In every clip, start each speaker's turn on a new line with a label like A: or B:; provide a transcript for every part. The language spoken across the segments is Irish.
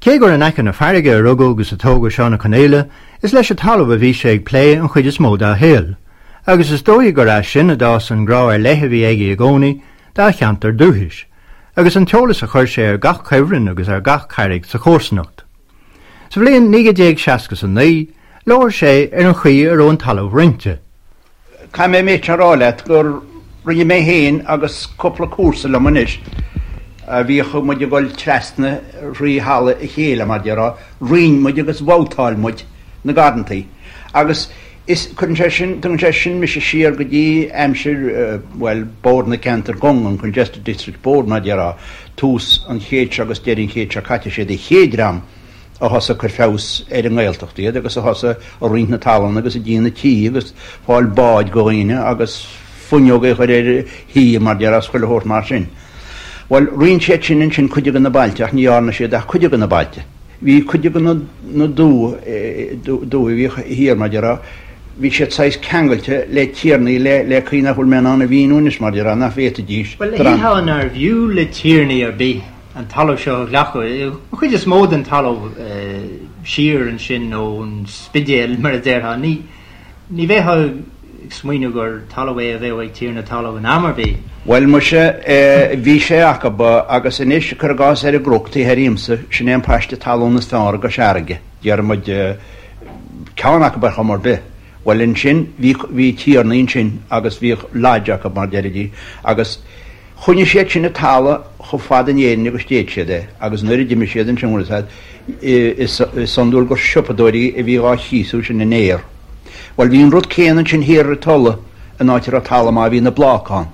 A: Cé gur in aice na farraige a rugadh agus a tógadh Seán Ó Conaola, is leis an talamh a bhí sé ag plé an chuid is mó dá shaol, agus is dóigh gur as sin a d'fhás an grá ar leith a bhí aige i gcónaí dá cheantar dúchais, agus an t-eolas a chuir sé ar gach cuibhreann agus ar gach carraig sa chomharsanacht. Sa bhliain 1969, labhair sé ar an chaoi a raibh an talamh roinnte.
B: Caithfidh mé an méid seo a rá leat gur rinne mé féin agus cúpla comharsa liom anois, a bhíodh muid ag dul trasna thrí thalamh a chéile, mar déarfá, roinn muid agus bhabhtáil muid na garrantaí. Agus is, cuireann sé sin, tugann sé sin mise siar go dtí aimsir, bhuel, Bord na Ceantar gCung, an Congested District Board, mar déarfá, tús an chéid seo agus deireadh an chéid seo caite, siad an chéad dream a thosaigh ag cur feabhas ar an nGaeltacht iad agus a thosaigh ag roinnt na talún agus ag déanamh tithe agus fáil báid go dhaoine agus fuinneoga a chur ar thithe mar déarfá is chuile shórt mar sin. Bhuel, roinn siad sin ansin cuid de na bailte ach ní dhearna siad ach cuid de na bailte. Bhí cuid de na dumhaigh a bhíodh thiar mar déarfá, bhí siad saghas ceangailte le tiarnaí le le caoi nach bhfuil mé in ann a mhíniú anois mar déarfá nach bhféadfaidís
A: Bhuel, shílfeá nárbh fhiú le tiarnaí ar bith an talamh seo a ghlacadh, an chuid is mó den talamh siar ansin ón Spidéal, mar a déarfá. Ní bheifeá ag smaoineamh gur talamh é a bheadh ag tiarna talaimh in am ar bith.
B: Bhuel, muise, bhí sé acu, agus anois, cuir i gcás ar an gCnoc taobh thoir dhíomsa, sin é an paiste talún is fearr i gCois Fharraige, déarfaidh muid, ceann acu ar chuma ar bith. Bhuel, ansin, bhí, bhí tiarnaí ansin agus bhíodh lodge acu, mar deiridís, agus, Choinnigh siad sin an talamh chomh fada in Éirinn agus d'fhéad siad é, agus nuair a d'imigh siad ansin, bhfuil a fhios a'd, is iondúil gur siopadóirí a bhí dhá chíosú sin in aer. Bhuel, bhí an rud céanna ansin thiar ar an Tulaigh, an áit a raibh talamh maith, bhí na Bláca ann,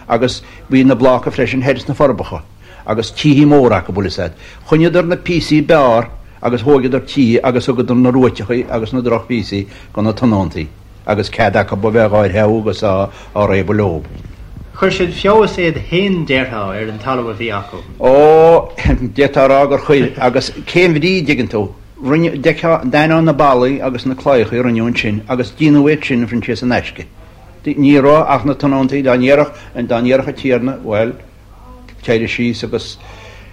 B: agus bhí na Bláca freisin thoir sna Forbacha, agus títhe móra acu, bhfuil a fhios a'd. Choinníodar na píosaí b'fhearr agus thóigeadar títhe agus thugadar na ruaiteachaí agus na drochphíosaí go na tionóntaí. agus cead acu a bheith dhá threabhadh agus á réabadh leob.
A: Chuir siad feabhas iad féin, déarfá, ar an talamh a bhí acu.
B: Ó, d'fhéadfá a rá gur chuir, agus cén bhrí, dtuigeann tú. Rinne, d'fheicfeá, d'aithneofá na ballaí agus na claíochaí a rinneadh ansin agus déanadh iad sin, a Phroinsias, in aisce. Ní raibh ach na tionóntaí, dá ndéarfadh, dá ndéarfadh an tiarna, bhuel, téir síos agus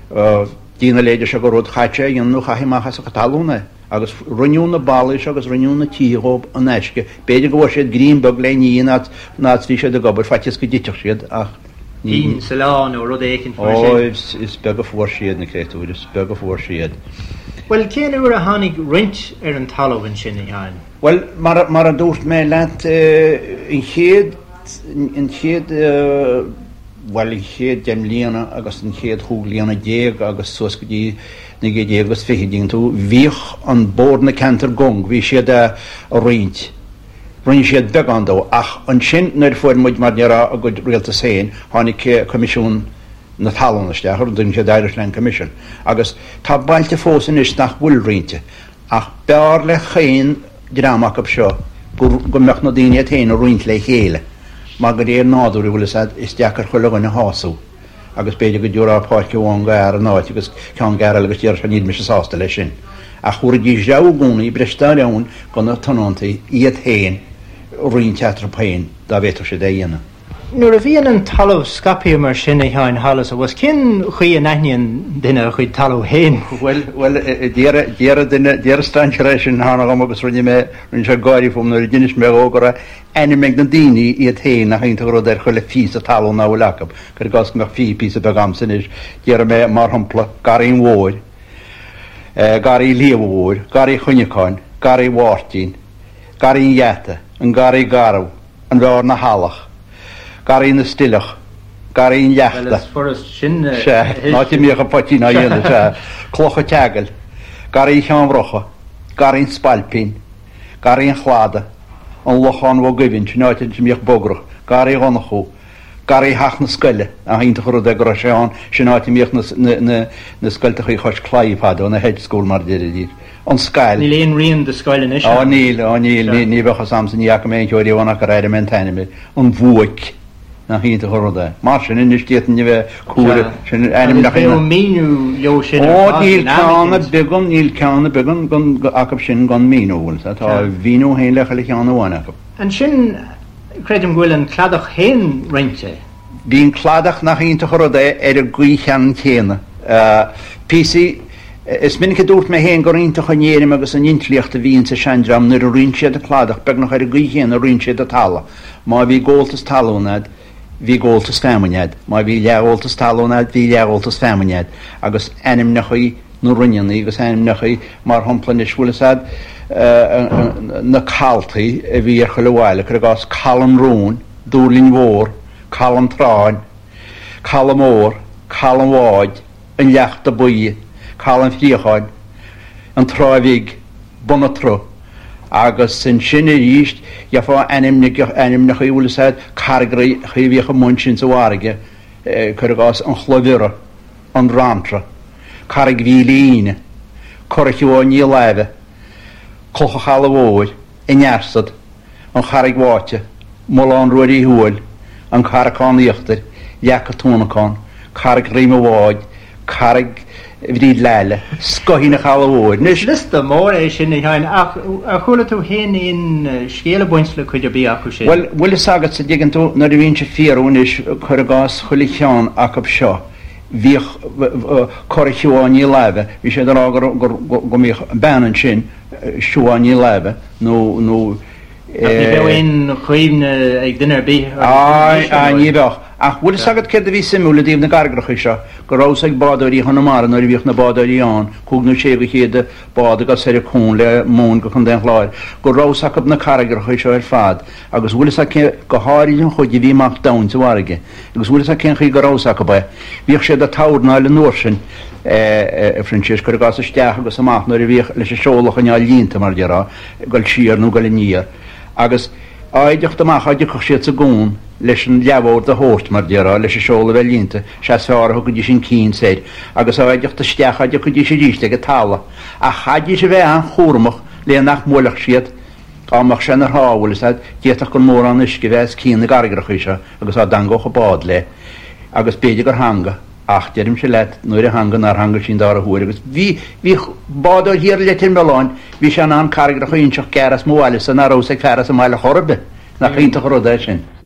B: déan a leithéide seo de rud, chaith sé a dhéanamh nó chaithfí amach as a chuid talún é. Agus rinneadh na ballaí seo agus rinneadh na títhe dhóibh in aisce. B'fhéidir go bhfuair siad greim beag le ní an áit a bhí siad ag obair, faitíos go dtitfeadh siad, ach
A: ní. Pingin sa lá nó rud éicint mar sin.
B: Ó, is beag a fuair siad, na créatúir, is beag a fuair siad.
A: Bhuel, cén uair a tháinig roinnt ar an talamh ansin, a Sheáin?
B: Bhuel, mar, mar a dúirt mé leat, an chéad, an chéad, bhuel, an chéad deich mbliana agus an chéad chúig bliana déag agus suas go dtí 1920, dtuigeann tú, bhíodh an Bord na Ceantar gCung, bhí siad a roinnt, rinne siad beagán dó, ach ansin nuair a fuair muid, mar déarfá, ár gcuid rialtas féin, tháinig Coimisiún na Talún isteach, ar a dtugann siad Irish Land Commission, agus tá bailte fós anois nach bhfuil roinnte, ach b'fhearr le chaon dream acu seo go go mbeadh na daoine iad féin a roinnt le chéile, mar de réir nádúir, an bhfuil fhios a'd, is deacair chuile dhuine a shású. agus b'fhéidir go dtabharfá páirc amháin go fhear in áit agus ceann go fhear eile agus déarfadh sé níl mise sásta leis sin. Ach thabharfaidís rogha i gcónaí, breis dá roghain go na tionóntaí iad féin roinnt eatarthu féin dá bhféadfadh siad é a dhéanamh.
A: Nuair a bhíonn an talamh scaipthe mar sin, a Sheáin, thall is abhus, cén chaoi a n-aithníonn duine a chuid talaimh féin?
B: Bhuel, bhuel, d'iarr, d'iarr duine, d'iarr strainséir é sin cheana dhom agus rinne mé, rinne sé gáirí fúm nuair a d'inis mé dhó go raibh ainm ag na daoine iad féin nach iontach an rud ar chuile phíosa talún ná fuil acu. Cuir i gcás go mbeadh 20 píosa beag a'msa anois, déarfaidh mé, mar shampla, Garraí an Mhóir, Garraí Shliabh Mhóir, Garraí Chuinneacáin, Garraí Mháirtín, Garraí an Gheata, an Garraí Garbh, an Bheár na hEallach, Garraí na Stileach, Garraí an Leachta,
A: Bhuel, is furast sin
B: a Sea, an áit a mbíodh an poitín á dhéanamh, sea, Cloch an tSeagail, Garraí Cheann Bhrocha, Garraí an Spailpín, Garraí an Chladaigh, an Lochán Bhog Aoibhinn, sin áit a mbíodh bogracht, Garraí Dhonnchú, Garraí Theach na Scoile, nach iontach an rud é go raibh sé ann, sin áit a mbíodh na na scoilteachaí chois claí fadó, na hedge school mar a deiridís, an Scail.
A: Níl aon rian de scoil anois
B: ann. Á níl, á níl, ní bheadh fhios a'msa, ní fhaca mé aon cheo riamh ann ach gur airigh mé an t-ainm air, an Bhuaic. Nach iontach an rud é. Mar sin anois d'fhéadfainn a bheith cúra,
A: sin ainmneacha
B: Agus
A: bheadh míniú leo sin ar
B: fad in am eicínt. Ó níl ceann ar bith gan, níl ceann ar bith gan, acu sin gan míniú, bhfuil 's a'd, tá a mhíniú féin le chuile cheann amháin acu.
A: Ansin, creidim go bhfuil an cladach féin roinnte.
B: Bhí an cladach, nach iontach an rud é, ar an gcaoi cheannann chéanna. Píosaí. Is minic a dúirt mé féin gur iontach an éirim agus an intlíocht a bhí insa seandream nuair a roinn siad an cladach beagnach ar an gcaoi chéanna a roinn siad an talamh. Má bhí gabháltas talún a'd, bhí gabháltas feamainne a'd. Má bhí leathghabháltas talún a'd, bhí leathghabháltas feamainne a'd. Agus ainmneachaí na roinneannaí agus ainmneachaí, mar shampla anois, bhfuil fhios a'd, na caltaí a bhí ar chuile bhaile, cuir i gcás Caladh an Rúin, Dúrlinn Mhór, Caladh an Tráin, Caladh Mór, Caladh an Bháid, an Leachta Buí, Caladh an Phríocháin, an Trá Bhig, Bun an tSrutha, agus ansin arís gheofá ainmneacha, bhfuil fhios a'd, carraigreacha a bhíodh amuigh ansin sa bhfarraige, cuir i gcás, an Chloich Bhiorra, an Bhranntra, Carraig Mhíle Aoine, Cora Shiobháin Ní Láimhe, Cloch an Chalaidh Mhóir, An Fhearsad, An Charraig Bháite, Mullán Ruairí Thuathail, An Carracán Íochtair, Leac an Tuanacán, Carraig Dhroim an Bháid, Carraig Bhríd Leaile, Scoithín an Chalaidh Mhóir.
A: Anois. Liosta mór é sin, a Sheáin, ach ar chuala tú féin aon scéal ag baint le cuid ar bith acu sin?
B: Bhuel, bhfuil fhios agat, a dtuigeann tú, nuair a bhínnse ag fiarú anois, cuir i gcás chuile cheann acu seo, bhíodh Cora Shiobháin Ní Láimhe, bhí siad ag rá go, go mbíodh bean ansin, Siobhán Ní Láimhe nó nó
A: Ach ní bheadh aon chuimhne ag duine ar bith orthu
B: anois, ar ndóigh. Ní bheadh. Ach bhfuil fhios agat céard a bhí suimiúil i dtaobh na gcarraigreacha seo? Go raibh fhios ag bádóirí Chonamara nuair a bhíodh na bádóirí ann, cúig nó sé go chéad bád ag dul soir an cuan le móin go Contae an Chláir, go raibh fhios acu na carraigreacha seo ar fad agus bhfuil fhios agat cé, go háirid an chuid a bhí amach domhain sa bhfarraige. Agus bhfuil fhios agat cén chaoi go raibh fhios acu é? Bhíodh siad ag tairneáil an uair sin, a Phroinsias, cuir i gcás isteach agus amach nuair a bhíodh leis an seol a choinneáil líonta, mar a déarfá, ag dul siar nó ag dul aniar. Agus á dteacht amach á dtiocfadh siad sa gcuan leis an leathbhord a thabhairt, mar a déarfá, leis an seol a bheith líonta, sea is fearr a thugaidís an cinn soir. Agus á dteacht isteach á dtiocfaidís arís ag an talamh. Ach chaithfidís a bheith an-chúramach le nach mbuailfeadh siad, Dá mbeadh sé ina thrá, bhfuil fhios a'd, d'fhéadfadh gur mórán uisce a bheith os cionn na gcarraigreacha seo agus á dtangódh an bád léi. Agus b'fhéidir gur theanga, ach deirimse leat, nuair a theanga nár theanga sí an dara huair. Agus bhí, bhí bádóir thiar i Leitir Mealláin, bhí sé in ann carraigreacha a inseacht gearr as mo bhaile-sa ná raibh fhios ag fear as an mbaile chor ar bith. Nach iontach an rud é sin.